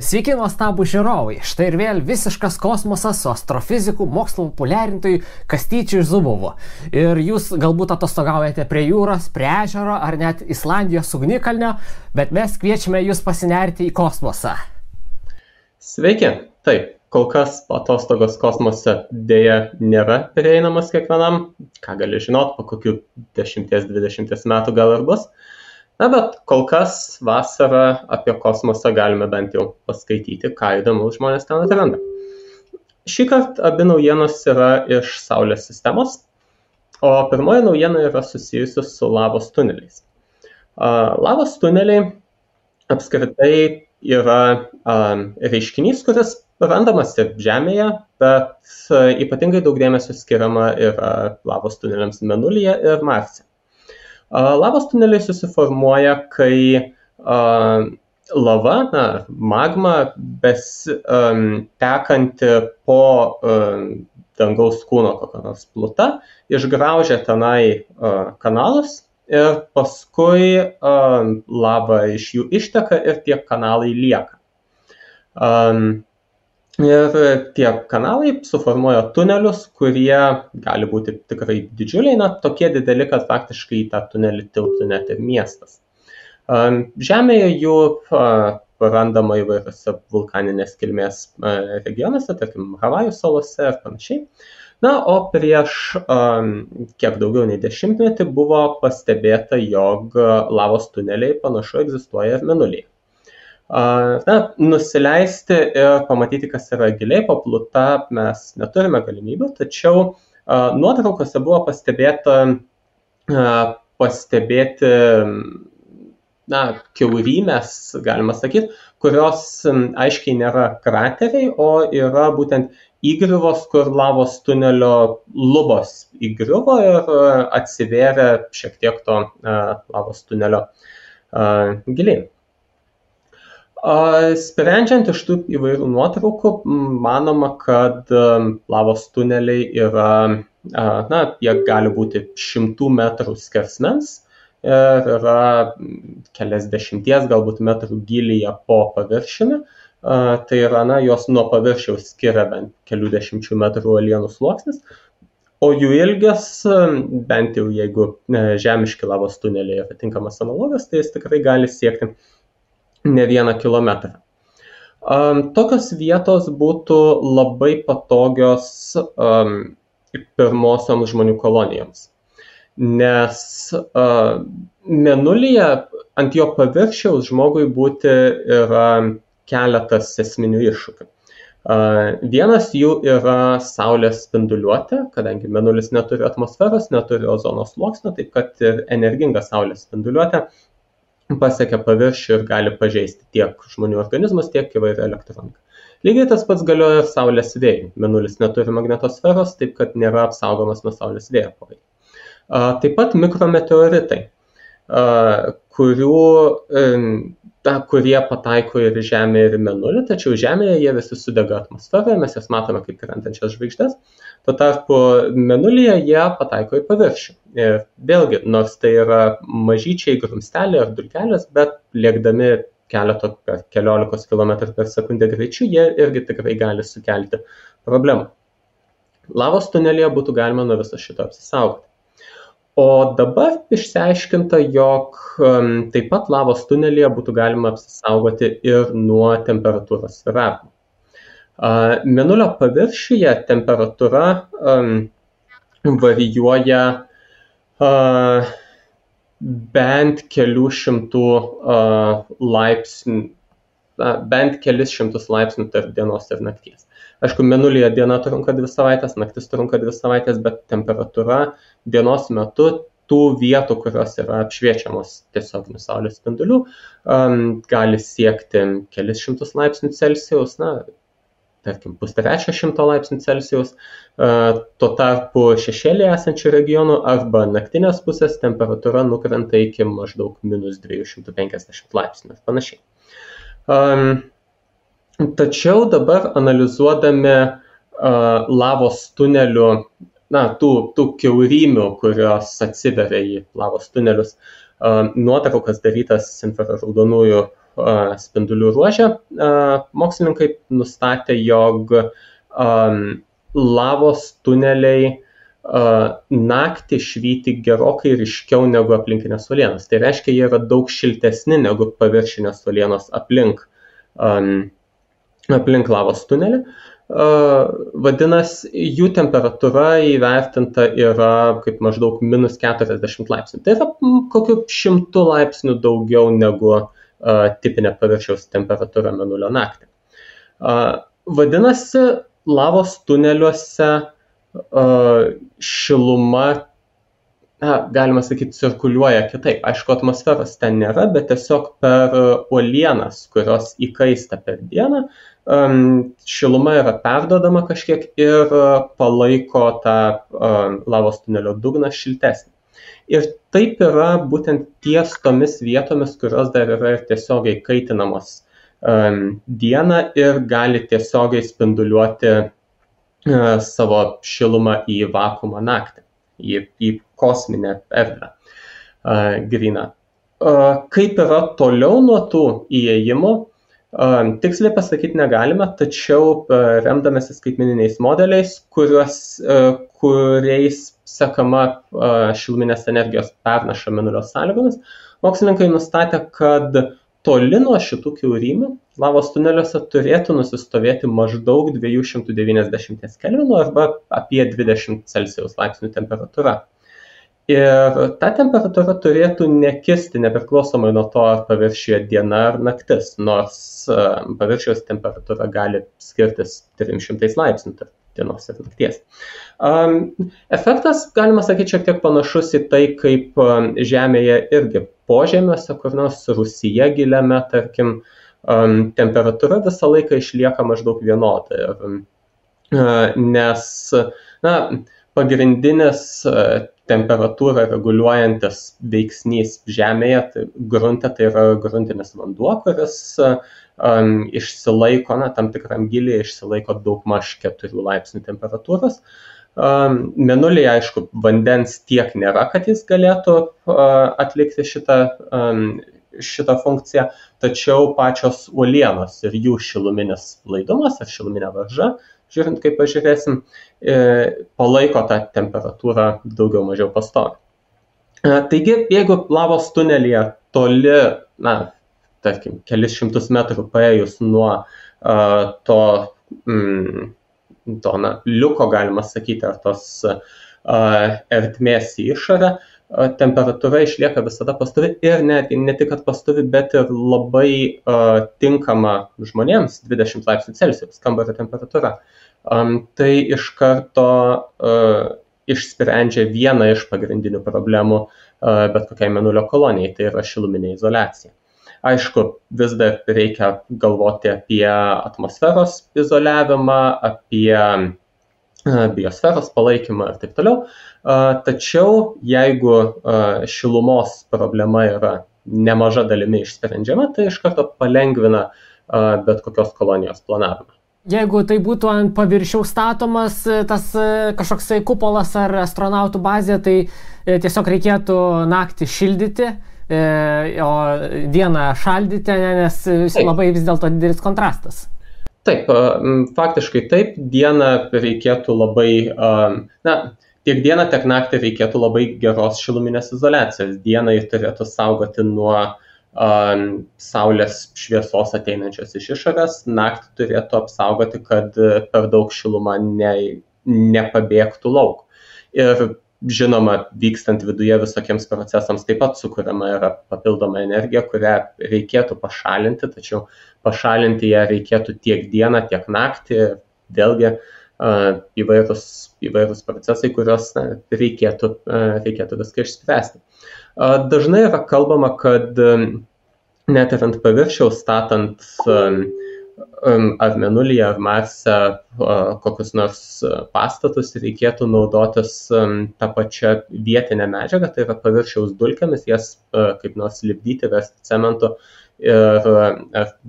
Sveiki nuostabų žiūrovai, štai ir vėl visiškas kosmosas su astrofiziku, mokslo populiarintojų Kastyčiu Zubovu. Ir jūs galbūt atostogaujate prie jūros, prie ežero ar net Islandijos ugnikalnio, bet mes kviečiame jūs pasinerti į kosmosą. Sveiki, taip, kol kas atostogos kosmose dėja nėra prieinamas kiekvienam, ką gali žinot, po kokių 10-20 metų gal ir bus. Na, bet kol kas vasarą apie kosmosą galime bent jau paskaityti, ką įdomu žmonės ten atranda. Šįkart abi naujienos yra iš Saulės sistemos, o pirmoji naujiena yra susijusi su lavos tuneliais. Lavos tuneliai apskritai yra reiškinys, kuris randamas ir Žemėje, bet ypatingai daug dėmesio skiriama yra lavos tuneliams Mėnulyje ir Marse. Lavos tuneliai susiformuoja, kai lava, magma, tekanti po dangaus kūno kokią nors plutą, išgraužia tenai kanalus ir paskui lava iš jų išteka ir tie kanalai lieka. Ir tie kanalai suformuoja tunelius, kurie gali būti tikrai didžiuliai, tokie dideli, kad faktiškai į tą tunelį tilptų net ir miestas. Žemėje jų randama įvairiose vulkaninės kilmės regionuose, tarkim, Havajų salose ir panašiai. Na, o prieš kiek daugiau nei 10 metį buvo pastebėta, jog lavos tuneliai panašu egzistuoja ir Mėnulyje. Nusileisti ir pamatyti, kas yra giliai po pluta, mes neturime galimybių, tačiau nuotraukose buvo pastebėti kiaurymės, galima sakyti, kurios aiškiai nėra krateriai, o yra būtent įgriuvos, kur lavos tunelio lubos įgriuvo ir atsivėrė šiek tiek to lavos tunelio giliai. Sprendžiant iš tų įvairių nuotraukų, manoma, kad lavos tuneliai yra, jie gali būti 100 metrų skersmens ir yra keliasdešimties galbūt metrų gylyje po paviršiumi. Tai yra, jos nuo paviršiaus skiria bent kelių dešimčių metrų uolienų sluoksnis, o jų ilgis, bent jau jeigu žemiški lavos tuneliai yra tinkamas analogas, tai jis tikrai gali siekti ne 1 kilometrą. Tokios vietos būtų labai patogios pirmosioms žmonių kolonijoms, nes Mėnulyje ant jo paviršiaus žmogui būti yra keletas esminių iššūkių. Vienas jų yra Saulės spinduliuotė, kadangi Mėnulis neturi atmosferos, neturi ozono sluoksnio, taip kad ir energinga Saulės spinduliuotė pasiekia paviršių ir gali pažeisti tiek žmonių organizmus, tiek įvairią elektroniką. Lygiai tas pats galioja ir Saulės vėjui. Mėnulis neturi magnetosferos, taip kad nėra apsaugomas nuo Saulės vėjo poveikio. Taip pat mikrometeoritai, kurie pataiko ir Žemę, ir Mėnulį, tačiau Žemėje jie visi sudega atmosferoje, mes jas matome kaip krentančias žvaigždes. Tuo tarpu Mėnulyje jie pataiko į paviršių. Ir vėlgi, nors tai yra mažyčiai grumsteliai ar dulkelės, bet lėkdami keliolikos kilometrų per sekundę greičiu, jie irgi tikrai gali sukelti problemų. Lavos tunelyje būtų galima nuo viso šito apsisaugoti. O dabar išsiaiškinta, jog taip pat lavos tunelyje būtų galima apsisaugoti ir nuo temperatūros svyravimų. Mėnulio paviršiuje temperatūra varijuoja bent kelių šimtų laipsnių, bent kelis šimtus laipsnių tarp dienos ir nakties. Aišku, Mėnulyje diena trunka 2 savaitės, naktis trunka 2 savaitės, bet temperatūra dienos metu tų vietų, kurios yra apšviečiamos tiesioginių saulės spindulių, gali siekti kelis šimtus laipsnių Celsijaus, tarkim, 150 laipsnių Celsijaus. Tuo tarpu šešėlyje esančių regionų arba naktinės pusės temperatūra nukrenta iki maždaug minus 250 laipsnių ir panašiai. Tačiau dabar analizuodami lavos tunelių, tų kiaurymių, kurios atsiveria į lavos tunelius, nuotraukas darytas infraraudonųjų spindulių ruože mokslininkai nustatė, jog lavos tuneliai naktį švyti gerokai ryškiau negu aplinkinės uolienos. Tai reiškia, jie yra daug šiltesni negu paviršinės uolienos aplink lavos tunelį. Vadinasi, jų temperatūra įvertinta yra kaip maždaug -40 laipsnių. Tai yra kokiu 100 laipsnių daugiau negu tipinė paviršiaus temperatūra mėnulio naktį. Vadinasi, lavos tuneliuose šiluma, galima sakyti, cirkuliuoja kitaip. Aišku, atmosferos ten nėra, bet tiesiog per uolienas, kurios įkaista per dieną, šiluma yra perduodama kažkiek ir palaiko tą lavos tunelio dugną šiltesnį. Ir taip yra būtent ties tomis vietomis, kurios dar yra ir tiesiogiai kaitinamos dieną ir gali tiesiogiai spinduliuoti savo šilumą į vakuumą naktį, į kosminę erdvę gryną. Kaip yra toliau nuo tų įėjimų, tiksliai pasakyti negalime, tačiau remdamėsi skaitmeniniais modeliais, kuriais sekama šiluminės energijos pernaša mėnulio sąlygomis, mokslininkai nustatė, kad toli nuo šitų kiaurymių lavos tuneliuose turėtų nusistovėti maždaug 290 kelvinų arba apie 20 Celsijaus laipsnių temperatūra. Ir ta temperatūra turėtų nekisti nepriklausomai nuo to, ar paviršiuje diena ar naktis, nors paviršiaus temperatūra gali skirtis 300 laipsnių tarp dienos ir nakties. Efektas, galima sakyti, šiek tiek panašus į tai, kaip Žemėje irgi požemiuose, kur nors Rūsyje giliame, tarkim, temperatūra visą laiką išlieka maždaug vienoda. Nes pagrindinis temperatūrą reguliuojantis veiksnys Žemėje, tai grunte, tai yra gruntinis vanduo, kuris išsilaiko, tam tikram gilyje išsilaiko daugmaž 4 laipsnių temperatūros. Mėnulyje, aišku, vandens tiek nėra, kad jis galėtų atlikti šitą funkciją, tačiau pačios uolienos ir jų šiluminis laidumas ar šiluminė varža, žiūrint, kaip pažiūrėsim, palaiko tą temperatūrą daugiau mažiau pastoviai. Taigi, jeigu lavos tunelyje toli, tarkim, kelis šimtus metrų paėjus nuo to liuko, galima sakyti, ar tos ertmės į išorę, temperatūra išlieka visada pastovi ir netgi ne tik, kad pastovi, bet ir labai tinkama žmonėms 20 laipsnių Celsijaus kambario temperatūra. Tai iš karto išsprendžia vieną iš pagrindinių problemų bet kokiai mėnulio kolonijai, tai yra šiluminė izoliacija. Aišku, vis dar reikia galvoti apie atmosferos izoliavimą, apie biosferos palaikymą ir taip toliau. Tačiau jeigu šilumos problema yra nemaža dalimi išsprendžiama, tai iš karto palengvina bet kokios kolonijos planavimą. Jeigu tai būtų ant paviršiaus statomas tas kažkoksai kupolas ar astronautų bazė, tai tiesiog reikėtų naktį šildyti, o dieną šaldyti, nes labai vis dėlto didelis kontrastas. Taip, faktiškai taip, dieną reikėtų labai, tiek dieną, tiek naktį reikėtų labai geros šiluminės izoliacijos. Dieną jį turėtų saugoti nuo saulės šviesos ateinančios iš išorės, naktį turėtų apsaugoti, kad per daug šiluma nepabėgtų lauk. Ir žinoma, vykstant viduje visokiems procesams taip pat sukuriama yra papildoma energija, kurią reikėtų pašalinti, tačiau pašalinti ją reikėtų tiek dieną, tiek naktį, vėlgi įvairūs procesai, kuriuos reikėtų viską išspręsti. Dažnai yra kalbama, kad net ir ant paviršiaus statant ar Mėnulyje, ar Marse kokius nors pastatus reikėtų naudotis tą pačią vietinę medžiagą, tai yra paviršiaus dulkėmis, jas kaip nors lipdyti, versti cementu ir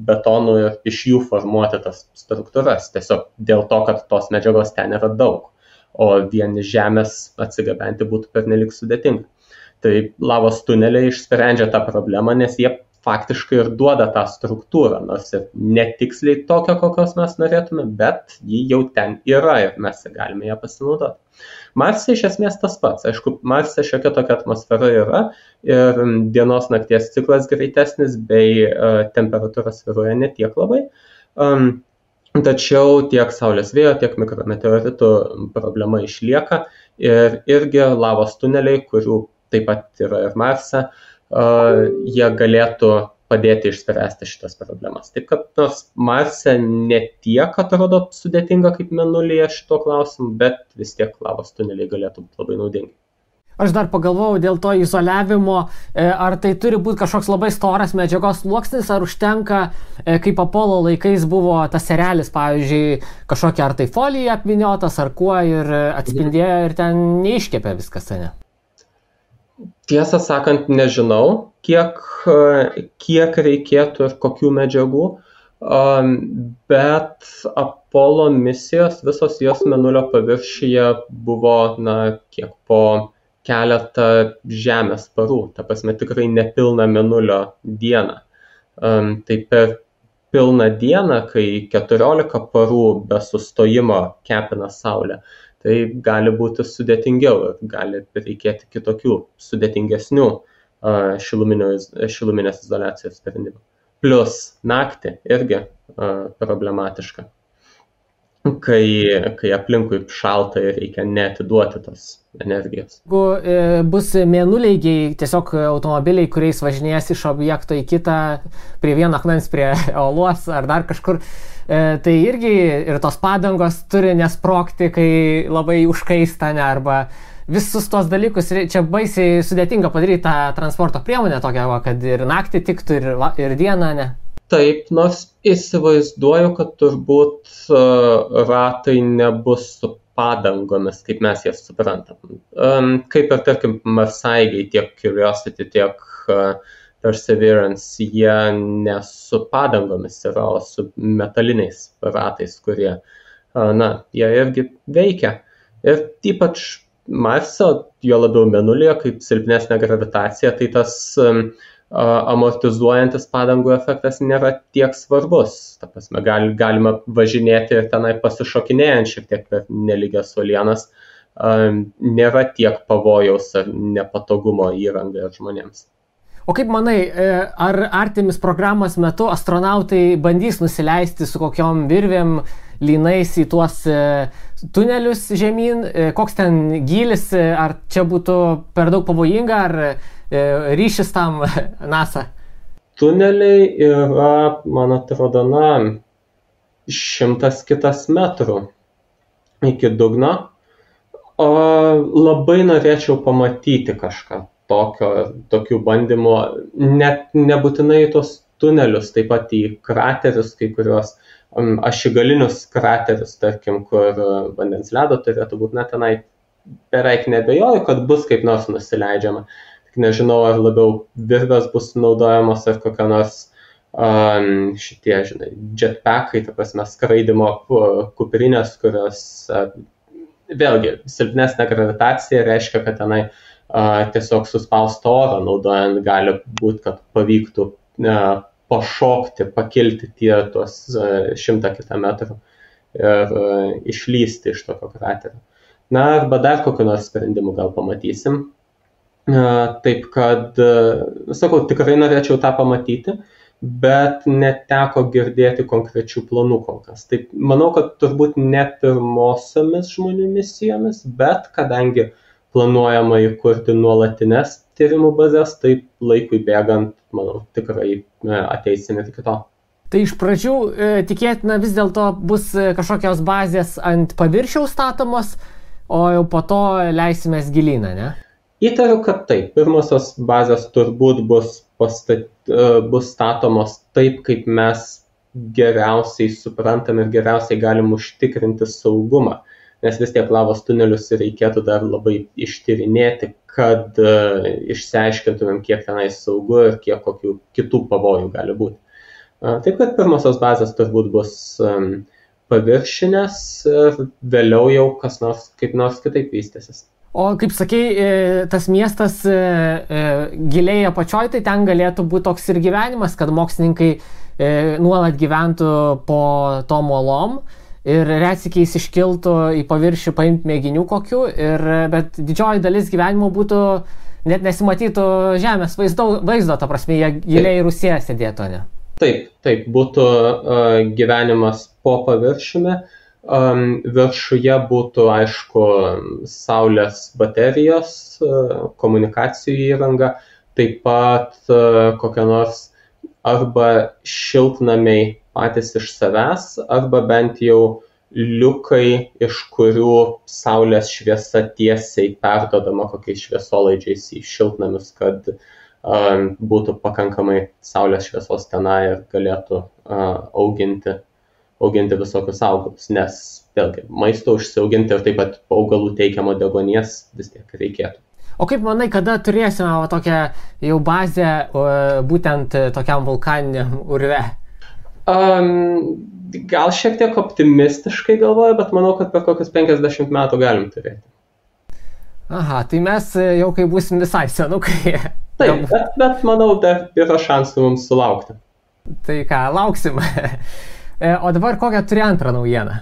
betonu ir iš jų formuoti tas struktūras, tiesiog dėl to, kad tos medžiagos ten yra daug, o vien iš žemės atsigabenti būtų pernelik sudėtinga. Tai lavos tuneliai išsprendžia tą problemą, nes jie faktiškai ir duoda tą struktūrą, nors ir netiksliai tokią, kokios mes norėtume, bet ji jau ten yra ir mes galime ją pasinaudoti. Marse iš esmės tas pats. Aišku, Marse šiokia tokia atmosfera yra ir dienos nakties ciklas greitesnis bei temperatūra svyruoja ne tiek labai. Tačiau tiek Saulės vėjo, tiek mikrometeoritų problema išlieka ir irgi lavos tuneliai, kurių taip pat yra ir Marse, jie galėtų padėti išspręsti šitas problemas. Taip kad nors Marse ne tiek atrodo sudėtinga kaip Mėnulyje šito klausimu, bet vis tiek lavos tuneliai galėtų būti labai naudingi. Aš dar pagalvojau dėl to izoliavimo, ar tai turi būti kažkoks labai storas medžiagos sluoksnis, ar užtenka, kaip Apollo laikais buvo tas serelis, pavyzdžiui, kažkokia ar tai folija apvyniotas, ar kuo ir atspindėjo ir ten neiškepė viskas, ne? Tiesą sakant, nežinau, kiek reikėtų ir kokių medžiagų, bet Apollo misijos, visos jos Mėnulio paviršiuje buvo, kiek po keletą Žemės parų, ta prasme tikrai nepilną Mėnulio dieną. Tai per pilną dieną, kai 14 parų be sustojimo kepina Saulę, tai gali būti sudėtingiau ir gali reikėti kitokių sudėtingesnių šiluminės izoliacijos sprendimų. Plus naktį irgi problematiška, kai aplinkui šalta ir reikia neatiduoti tos energijos. Jeigu bus mėnuleigiai, tiesiog automobiliai, kuriais važinės iš objekto į kitą, prie vieno akmens, prie uolos ar dar kažkur, tai irgi ir tos padangos turi nesprogti, kai labai užkaista, arba visus tos dalykus. Čia baisiai sudėtinga padaryti tą transporto priemonę tokią, kad ir naktį tiktų, ir dieną, ne? Taip, nors įsivaizduoju, kad turbūt ratai nebus su padangomis, kaip mes jas suprantam. Kaip ir, tarkim, marsaigiai, tiek Curiosity, tiek Perseverance, jie ne su padangomis yra, o su metaliniais ratais, kurie, jie irgi veikia. Ir ypač Marse, jo labiau Mėnulyje, kaip silpnesnė gravitacija, tai tas amortizuojantis padangų efektas nėra tiek svarbus. Ta prasme, galima važinėti ir tenai pasišokinėjant šiek tiek per nelygias uolienas. Nėra tiek pavojaus ar nepatogumo įrangai ir žmonėms. O kaip manai, ar Artemis programos metu astronautai bandys nusileisti su kokiom virvėm, lynais į tuos tunelius žemyn? Koks ten gylis? Ar čia būtų per daug pavojinga, ar ryšis tam NASA? Tuneliai yra, man atrodo, 100 kitas metrų iki dugno. Labai norėčiau pamatyti kažką tokių bandymų, net nebūtinai tos tunelius, taip pat į kraterius, kai kuriuos ašigalinius kraterius, tarkim, kur vandens ledo turėtų būti, tenai beveik nebejoju, kad bus kaip nors nusileidžiama. Tik nežinau, ar labiau virvės bus naudojamos, ar kokia nors šitie, jetpackai, ta prasme, skraidimo kuprinės, kurios vėlgi silpnesnė gravitacija reiškia, kad tenai tiesiog suspaustą orą naudojant gali būti, kad pavyktų pašokti, pakilti tuos 100 kitą metrų ir išlysti iš tokio kraterio. Arba dar kokių nors sprendimų gal pamatysim. Taip kad, sakau, tikrai norėčiau tą pamatyti, bet neteko girdėti konkrečių planų kol kas. Taip, manau, kad turbūt ne pirmosiomis žmonių misijomis, bet kadangi planuojama įkurti nuolatines tyrimų bazės, taip laikui bėgant, manau, tikrai ateisime iki to. Tai iš pradžių tikėtina vis dėlto bus kažkokios bazės ant paviršiaus statomos, o jau po to leisimės gilyną, ne? Įtariu, kad taip. Pirmosios bazės turbūt bus statomos taip, kaip mes geriausiai suprantam ir geriausiai galim užtikrinti saugumą. Nes vis tiek lavos tunelius reikėtų dar labai ištyrinėti, kad išsiaiškintumėm, kiek tenai saugu ir kiek kokių kitų pavojų gali būti. Taip kad pirmosios bazės turbūt bus paviršinės ir vėliau jau kas nors kaip nors kitaip vystysis. O kaip sakei, tas miestas giliai apačioj, tai ten galėtų būti toks ir gyvenimas, kad mokslininkai nuolat gyventų po tom uolom ir retsykiais iškiltų į paviršių paimti mėginių kokių, bet didžioji dalis gyvenimo būtų, net nesimatytų žemės vaizdo, ta prasme, jie giliai Rusija sėdėtų, ne? Taip, būtų gyvenimas po paviršiumi. Viršuje būtų, aišku, saulės baterijos, komunikacijų įranga, taip pat kokia nors arba šiltnamiai patys iš savęs, arba bent jau liukai, iš kurių saulės šviesa tiesiai perdodama kokiais šviesolaidžiais į šiltnamius, kad būtų pakankamai saulės šviesos tenai ir galėtų auginti visokius augalus, nes vėlgi maisto užsiauginti ir taip pat augalų teikiamo deguonies vis tiek reikėtų. O kaip manai, kada turėsime tokią jau bazę būtent tokiam vulkaniniam urve? Gal šiek tiek optimistiškai galvoju, bet manau, kad per kokius 50 metų galim turėti. Aha, tai mes jau kai būsim visai senukai. Taip, bet manau, dar yra šansų mums sulaukti. Tai ką, lauksim. O dabar kokią turi antrą naujieną?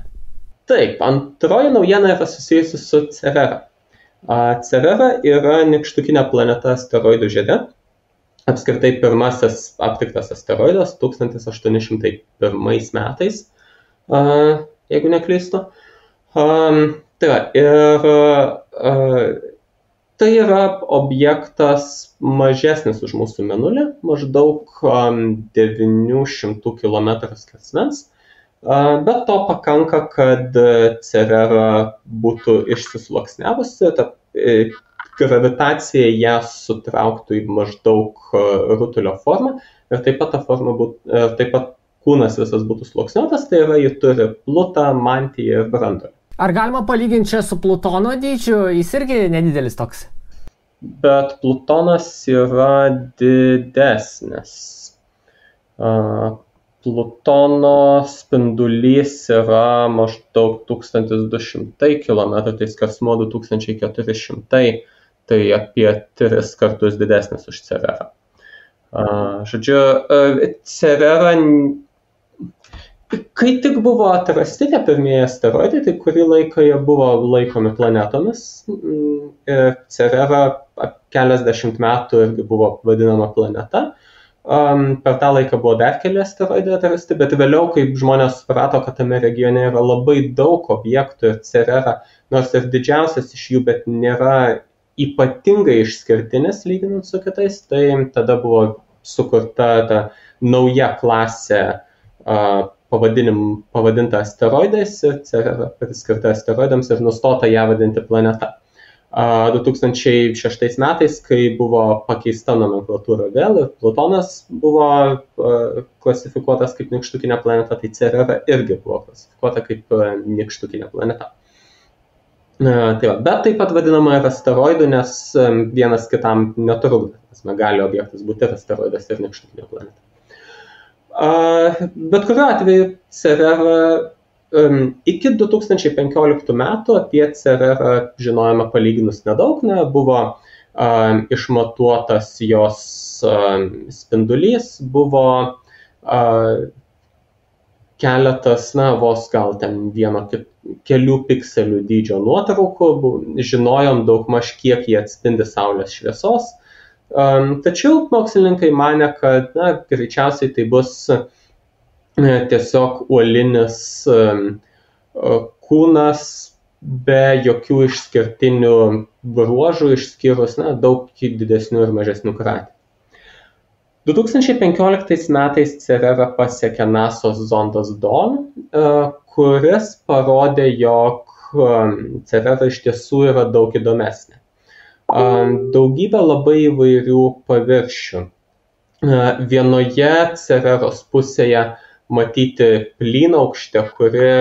Taip, antroji naujiena yra susijusi su Cerera. Cerera yra nykštukinė planeta asteroidų žiede. Apskritai pirmasis aptiktas asteroidas 1801 metais, jeigu neklystu. Tai yra objektas mažesnis už mūsų Mėnulį, maždaug 900 km skersmens, bet to pakanka, kad Cerera būtų išsisluoksniavusi, gravitacija ją sutrauktų į maždaug rutulio formą ir taip pat kūnas visas būtų sluoksniuotas, tai yra, ji turi plutą, mantiją ir branduolį. Ar galima palyginti čia su Plutono dydžiu? Jis irgi nedidelis toks. Bet Plutonas yra didesnis. Plutono spindulys yra maždaug 1200 km, tai skersmuo 2400, tai apie 3 kartus didesnis už Cererą. Žodžiu, Cerera, kai tik buvo atrasti tie pirmieji asteroidai, tai kurį laiką jie buvo laikomi planetomis. Cerera keliasdešimt metų irgi buvo vadinama planeta. Per tą laiką buvo dar keli asteroidai atrasti, bet vėliau, kai žmonės suprato, kad tame regione yra labai daug objektų ir Cerera, nors ir didžiausias iš jų, bet nėra ypatingai išskirtinis lyginant su kitais, tai tada buvo sukurta ta nauja klasė pavadinta asteroidais ir Cerera priskirta asteroidams ir nustota ją vadinti planeta. 2006 metais, kai buvo pakeista nomenklatūra vėl ir Plutonas buvo klasifikuotas kaip nykštukinė planeta, tai Cerera irgi buvo klasifikuota kaip nykštukinė planeta. Bet taip pat vadinama ir asteroidų, nes vienas kitam netrukdo. Gali objektas būti ir asteroidas ir nykštukinė planeta. Bet kuriuo atveju Cerera iki 2015 metų apie Cererą žinojome palyginus nedaug, buvo išmatuotas jos spindulys, buvo keletas, vos gal ten kelių pikselių dydžio nuotraukų, žinojom daugmaž kiek jie atspindi saulės šviesos, tačiau mokslininkai manė, kad greičiausiai tai bus tiesiog uolinis kūnas be jokių išskirtinių bruožų, išskyrus daug didesnių ir mažesnių kraterių. 2015 metais Cerera pasiekė NASO's zondas Dawn, kuris parodė, jog Cerera iš tiesų yra daug įdomesnė. Daugybė labai įvairių paviršių. Vienoje Cereros pusėje matyti plynaukštė, kuri,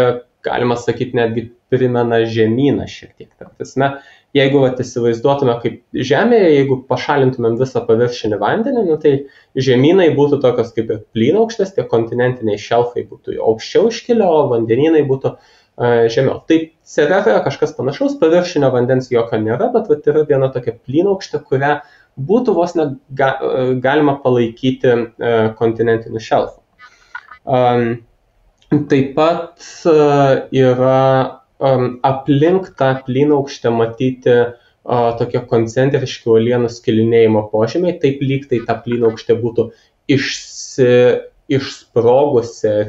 galima sakyti, netgi primena žemyną šiek tiek. Prasme, jeigu įsivaizduotume kaip Žemėje, jeigu pašalintumėm visą paviršinį vandenį, tai žemynai būtų tokios kaip ir plynaukštės, tie kontinentiniai šelfai būtų aukščiau iškilę, o vandenynai būtų žemiau. Tai Cereroje kažkas panašaus, paviršinio vandens jokio nėra, bet yra viena tokia plynaukštė, kurią būtų vos galima palaikyti kontinentiniu šelfu. Taip pat yra aplink tą plynaukštę matyti tokie koncentriški uolienų skilinėjimo požymiai, taip lyg tai ta plynaukštė būtų išsprogusi ir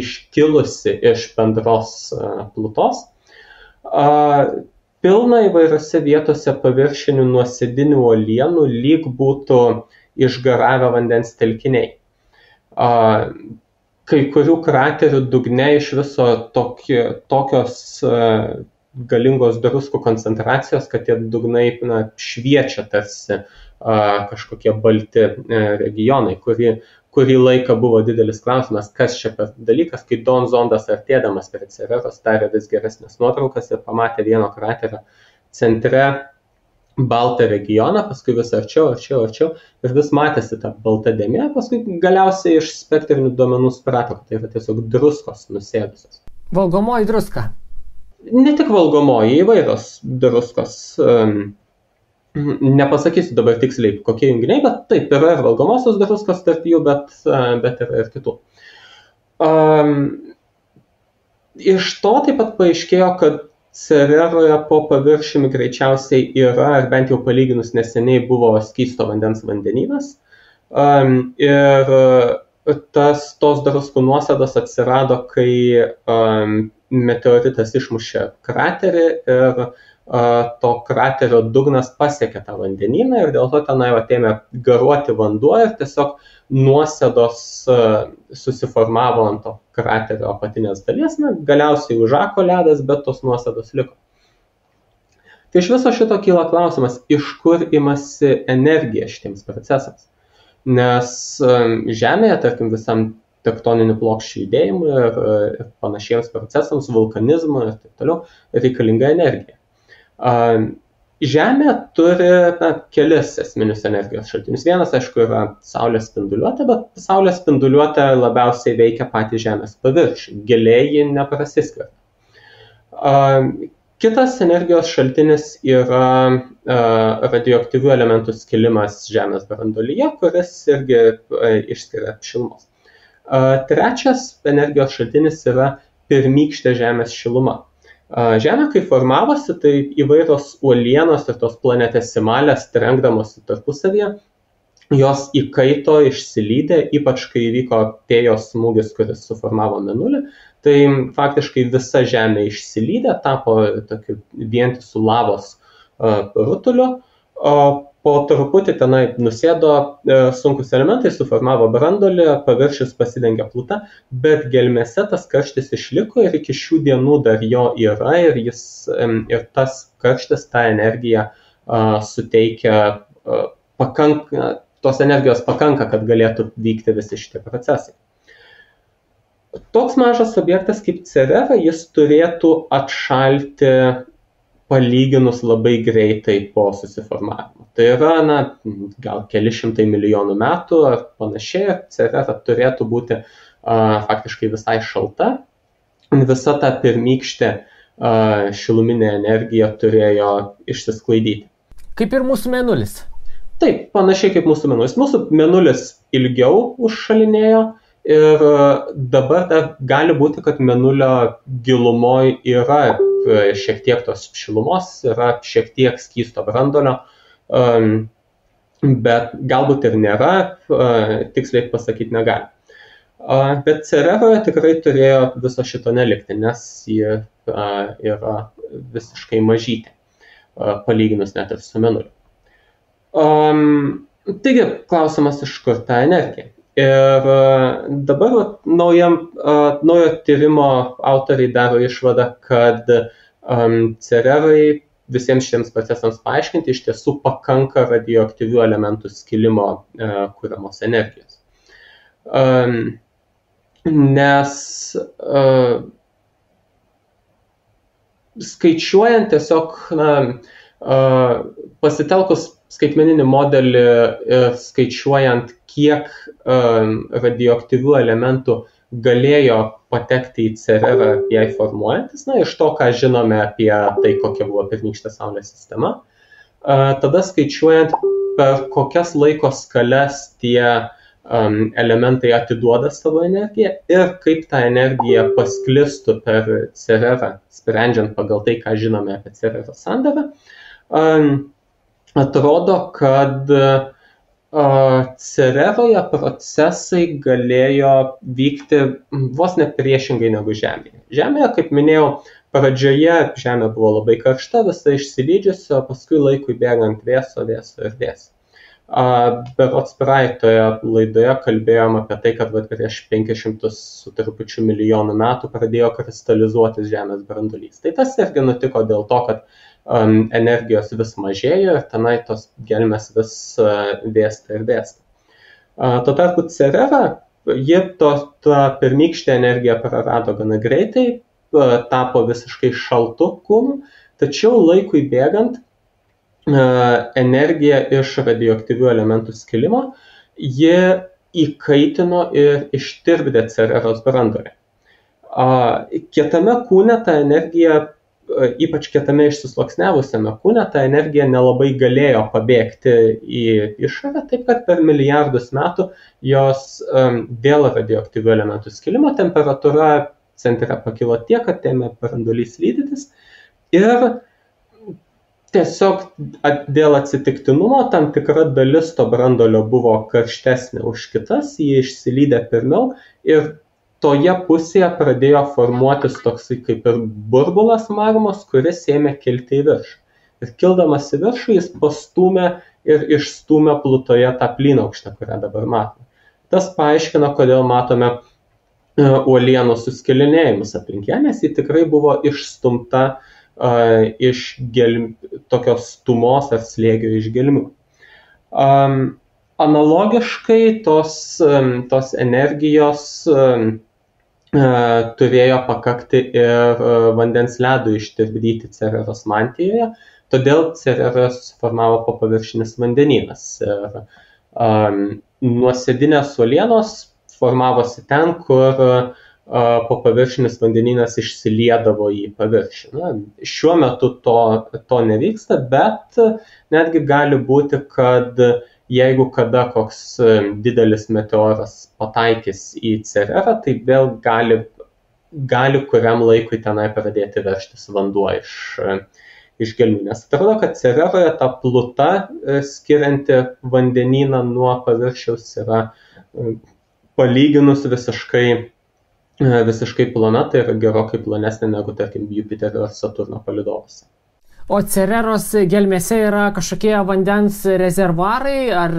iškilusi iš bendros plutos. Pilna įvairiose vietose paviršinių nuosėdinių uolienų, lyg būtų išgaravę vandens telkiniai. Kai kurių kraterių dugne iš viso tokios galingos druskų koncentracijos, kad tie dugnai šviečia tarsi kažkokie balti regionai, kurį laiką buvo didelis klausimas, kas čia per dalykas, kai Dawn zondas artėdamas prie Cereros darė vis geresnės nuotraukas ir pamatė vieno kraterio centre baltą regioną, paskui vis arčiau ir vis matėsi ta balta dėmė, paskui galiausiai iš spektrinių duomenų suprato, kad tai yra tiesiog druskos nusėdusios. Valgomoji druska? Ne tik valgomoji, įvairios druskos. Nepasakysiu dabar tiksliai, kokie junginiai, bet taip, yra ir valgomosios druskos tarp jų, bet yra ir kitų. Iš to taip pat paaiškėjo, kad Cereroje po paviršiumi greičiausiai yra, ar bent jau palyginus neseniai buvo skysto vandens vandenynas. Ir tos druskų nuosėdos atsirado, kai meteoritas išmušė kraterį ir to kraterio dugnas pasiekė tą vandenyną ir dėl to tenai atėmė garuoti vanduo ir tiesiog nuosėdos susiformavo ant to kraterio apatinės dalies, galiausiai užako ledas, bet tos nuosėdos liko. Tai iš viso šito kyla klausimas, iš kur imasi energija šitiems procesams. Nes Žemėje, tarkim, visam tektoninių plokščių judėjimui ir panašiems procesams, vulkanizmui ir taip toliau, reikalinga energija. Žemė turi kelis esminius energijos šaltinius. Vienas, aišku, yra Saulės spinduliuotė, bet Saulės spinduliuotė labiausiai veikia patį Žemės paviršių. Giliai ji neprasiskverbia. Kitas energijos šaltinis yra radioaktyvių elementų skilimas Žemės branduolyje, kuris irgi išskiria šilumos. Trečias energijos šaltinis yra pirmykštė Žemės šiluma. Žemė, kai formavosi, tai įvairios uolienos ir tos planetesimalės trenkdamosi tarpusavyje, jos įkaito, išsilydė, ypač kai įvyko Tėjos smūgis, kuris suformavo Mėnulį, tai faktiškai visa Žemė išsilydė, tapo tokiu vientisu lavos rutuliu, o po truputį tenai nusėdo sunkus elementai, suformavo branduolį, paviršius pasidengė pluta, bet gelmėse tas karštis išliko ir iki šių dienų dar jo yra ir tas karštis, tą energiją suteikia, tos energijos pakanka, kad galėtų vykti visi šitie procesai. Toks mažas objektas kaip Cerera, jis turėtų atšalti palyginus labai greitai po susiformavimo. Tai yra, gal keli šimtai milijonų metų ar panašiai, Cerera turėtų būti faktiškai visai šalta. Visa ta pirmykštė šiluminė energija turėjo išsisklaidyti. Kaip ir mūsų Mėnulis. Taip, panašiai kaip mūsų Mėnulis. Mūsų Mėnulis ilgiau užšalinėjo ir dabar dar gali būti, kad Mėnulio gilumoje yra šiek tiek tos šilumos, yra šiek tiek skysto branduolio, bet galbūt ir nėra, tiksliai pasakyti negali. Bet Cereroje tikrai turėjo viso šito nelikti, nes ji yra visiškai mažytė, palyginus net ir su Mėnuliu. Taigi, klausimas, iš kur ta energija. Ir dabar naujo tyrimo autoriai daro išvadą, kad Cererai visiems šiems procesams paaiškinti iš tiesų pakanka radioaktyvių elementų skilimo kuriamos energijos. Nes skaičiuojant tiesiog, pasitelkus skaitmeninį modelį ir skaičiuojant, kiek radioaktyvių elementų galėjo patekti į Cererą jai formuojantis, iš to, ką žinome apie tai, kokia buvo pirmykštė Saulės sistema. Tada skaičiuojant, per kokias laiko skales tie elementai atiduoda savo energiją ir kaip ta energija pasklistų per Cererą, sprendžiant pagal tai, ką žinome apie Cerero sandarą, atrodo, kad Cereroje procesai galėjo vykti vos ne priešingai negu Žemėje. Žemėje, kaip minėjau, pradžioje Žemė buvo labai karšta, visa išsilydžiusi, o paskui laikui bėgant vėso ir vėso. Berods praeitoje laidoje kalbėjom apie tai, kad prieš 500 su trupučiu milijonų metų pradėjo kristalizuotis Žemės branduolys. Tai tas irgi nutiko dėl to, kad energijos vis mažėjo ir tenai tos gelmės vis vėsta ir vėsta. Tuo tarpu Cerera, ji tą pirmykštę energiją prarado gana greitai, tapo visiškai šaltu kūnu, tačiau laikui bėgant energija iš radioaktyvių elementų skilimo, ji įkaitino ir ištirpdė Cereros branduolį. Kietame kūne ta energija, ypač kietame išsisluoksniavusiame kūne, ta energija nelabai galėjo pabėgti į išorę, taip kad per milijardus metų jos dėl radioaktyvių elementų skilimo temperatūra centre pakilo tiek, kad ėmė branduolys lydytis ir tiesiog dėl atsitiktinumo tam tikra dalis to branduolio buvo karštesnė už kitas, jie išsilydė pirmiau ir toje pusėje pradėjo formuotis toksai kaip ir burbulas magmos, kuris ėmė kilti į viršų. Ir kildamas į viršų jis pastūmė ir išstūmė Plutoje tą plynaukštę, kurią dabar matome. Tas paaiškino, kodėl matome uolienų suskilinėjimus aplink ją, nes ji tikrai buvo išstumta iš tokios stumos ar slėgio iš gelmių. Analogiškai tos energijos turėjo pakakti ir vandens ledui ištirpdyti Cereros mantijoje, todėl Cereras formavo popaviršinis vandenynas. Nuosėdinės uolienos formavosi ten, kur popaviršinis vandenynas išsiliedavo į paviršių. Šiuo metu to nevyksta, bet netgi gali būti, kad jeigu kada koks didelis meteoras pataikys į Cererą, tai vėl gali kuriam laikui tenai pradėti veržtis vanduo iš gelmių. Nes atrodo, kad Cereroje ta pluta skirianti vandenyną nuo paviršiaus yra palyginus visiškai plona, tai yra gerokai plonesnė negu, tarkim, Jupiterio ar Saturno palydovuose. O Cereros gelmėse yra kažkokie vandens rezervuarai ar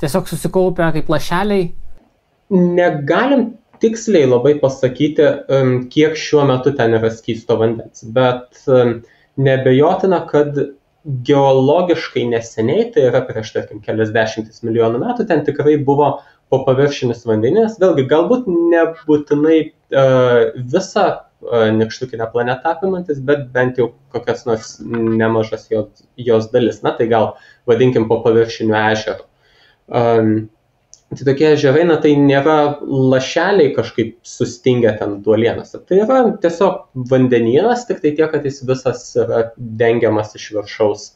tiesiog susikaupia kaip lašeliai? Negalim tiksliai labai pasakyti, kiek šiuo metu ten yra skysto vandens, bet neabejotina, kad geologiškai neseniai, tai yra prieš, tarkim, keliasdešimtis milijonų metų, ten tikrai buvo popaviršinis vandenynas, vėlgi galbūt nebūtinai visą nykštukinę planetą apimantis, bet bent jau kokias nors nemažas jos dalis, tai gal vadinkim popaviršiniu ežeru. Tai tokie ežerai, tai nėra lašeliai kažkaip sustingę ten uolienose, tai yra tiesiog vandenynas, tik tai tiek, kad jis visas yra dengiamas iš viršaus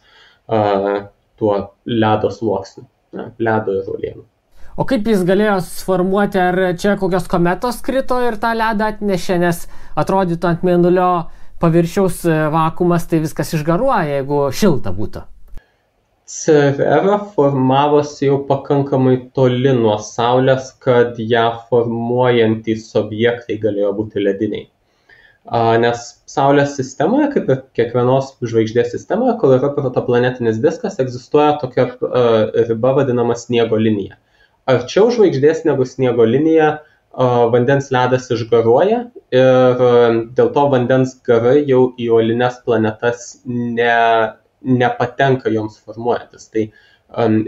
tuo ledo sluoksniu, ledo ir uolienų. O kaip jis galėjo suformuoti, ar čia kokios kometos krito ir tą ledą atnešė, nes atrodytų ant Mėnulio paviršiaus vakuumas, tai viskas išgaruoja, jeigu šilta būtų? Cerera formavosi jau pakankamai toli nuo Saulės, kad ją formuojantys objektai galėjo būti lediniai. Nes Saulės sistemoje, kaip ir kiekvienos žvaigždės sistemoje, kol yra protoplanetinis diskas, egzistuoja tokia riba vadinama sniego linija. Arčiau žvaigždės negu sniego linija vandens ledas išgaruoja ir dėl to vandens garai jau į uolines planetas nepatenka joms formuojantis. Tai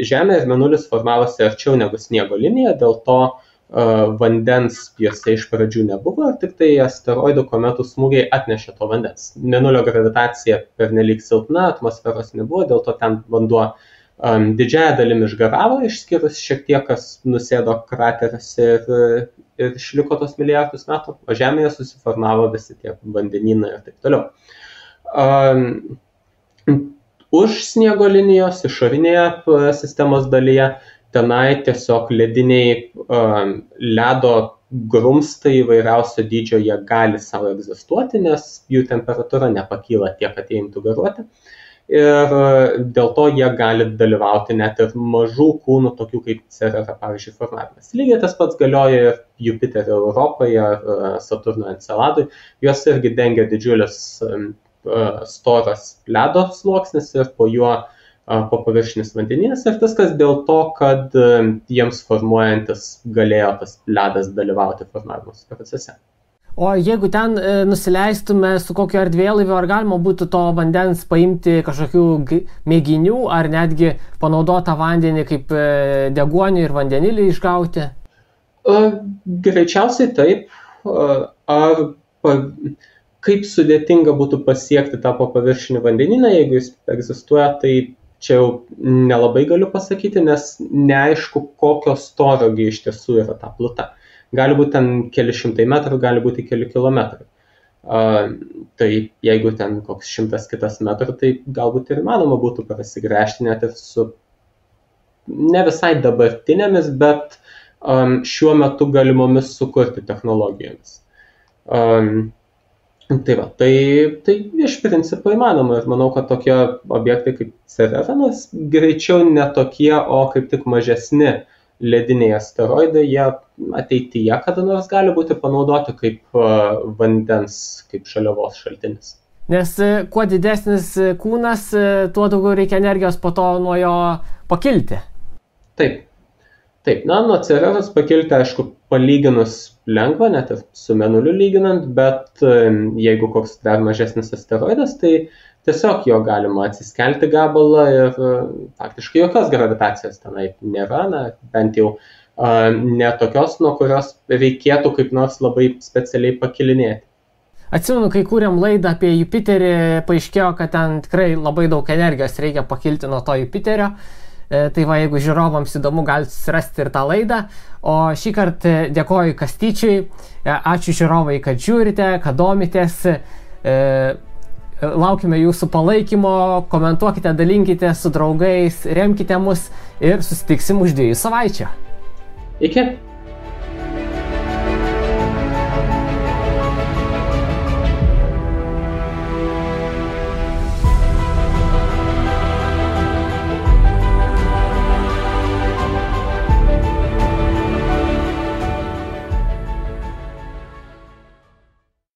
Žemė ir Mėnulis formavosi arčiau negu sniego linija, dėl to vandens juose iš pradžių nebuvo ir tik tai asteroidų kometų smūgiai atnešė to vandens. Mėnulio gravitacija pernelyg silpna, atmosferos nebuvo, dėl to ten vanduo didžiąją dalimi išgaravo, išskyrus šiek tiek, kas nusėdo krateriuose ir išliko tos milijardus metų, o Žemėje susiformavo visi tie vandenynai ir taip toliau. Už sniego linijos išorinėje sistemos dalyje tenai tiesiog lediniai ledo grumstai įvairiausio dydžio jie gali savo egzistuoti, nes jų temperatūra nepakyla tiek, kad jie imtų garuoti. Ir dėl to jie gali dalyvauti net ir mažų kūnų, tokių kaip Cerera, pavyzdžiui, formavimas. Lygiai tas pats galioja ir Jupiterio Europoje, Saturno Enceladui. Juos irgi dengia didžiulis storas ledo sluoksnis ir po juo po paviršinis vandenynas. Ir viskas dėl to, kad jiems formuojantis galėjo tas ledas dalyvauti formavimosi procese. O jeigu ten nusileistume su kokiu erdvėlaiviu, ar galima būtų to vandens paimti kažkokių mėginių, ar netgi panaudotą vandenį kaip deguonį ir vandenilį išgauti? Greičiausiai taip. Kaip sudėtinga būtų pasiekti tą paviršinį vandenyną, jeigu jis egzistuoja, tai čia jau nelabai galiu pasakyti, nes neaišku, kokio storio iš tiesų yra ta pluta. Gali būti ten keli šimtai metrų, gali būti keli kilometrai. Tai jeigu ten koks 100 kitas metrų, tai galbūt ir įmanoma būtų prasigręžti net ir su ne visai dabartinėmis, bet šiuo metu galimomis sukurti technologijomis. Tai iš principo įmanoma ir manau, kad tokie objektai kaip Cerera, greičiau ne tokie, o kaip tik mažesni lediniai asteroidai, jie ateityje kada nors gali būti panaudoti kaip vandens, kaip žaliavos šaltinis. Nes kuo didesnis kūnas, tuo daugiau reikia energijos po to nuo jo pakilti. Taip. Nuo Cereros pakilti, aišku, palyginus lengva, net ir su Mėnuliu lyginant, bet jeigu koks dar mažesnis asteroidas, tai tiesiog jo galima atsiskelti gabalą ir faktiškai jokios gravitacijos tenai nėra, bent jau ne tokios, nuo kurios reikėtų kaip nors labai specialiai pakilinėti. Atsimenu, kai kūrėm laidą apie Jupiterį, paaiškėjo, kad ten tikrai labai daug energijos reikia pakilti nuo to Jupiterio. Tai va, jeigu žiūrovams įdomu, galite susirasti ir tą laidą. O šį kartą dėkoju Kastyčiui. Ačiū žiūrovai, kad žiūrite, kad domitės. Laukime jūsų palaikymo, komentuokite, dalinkite su draugais, remkite mus ir susitiksim už 2 savaičių. Iki.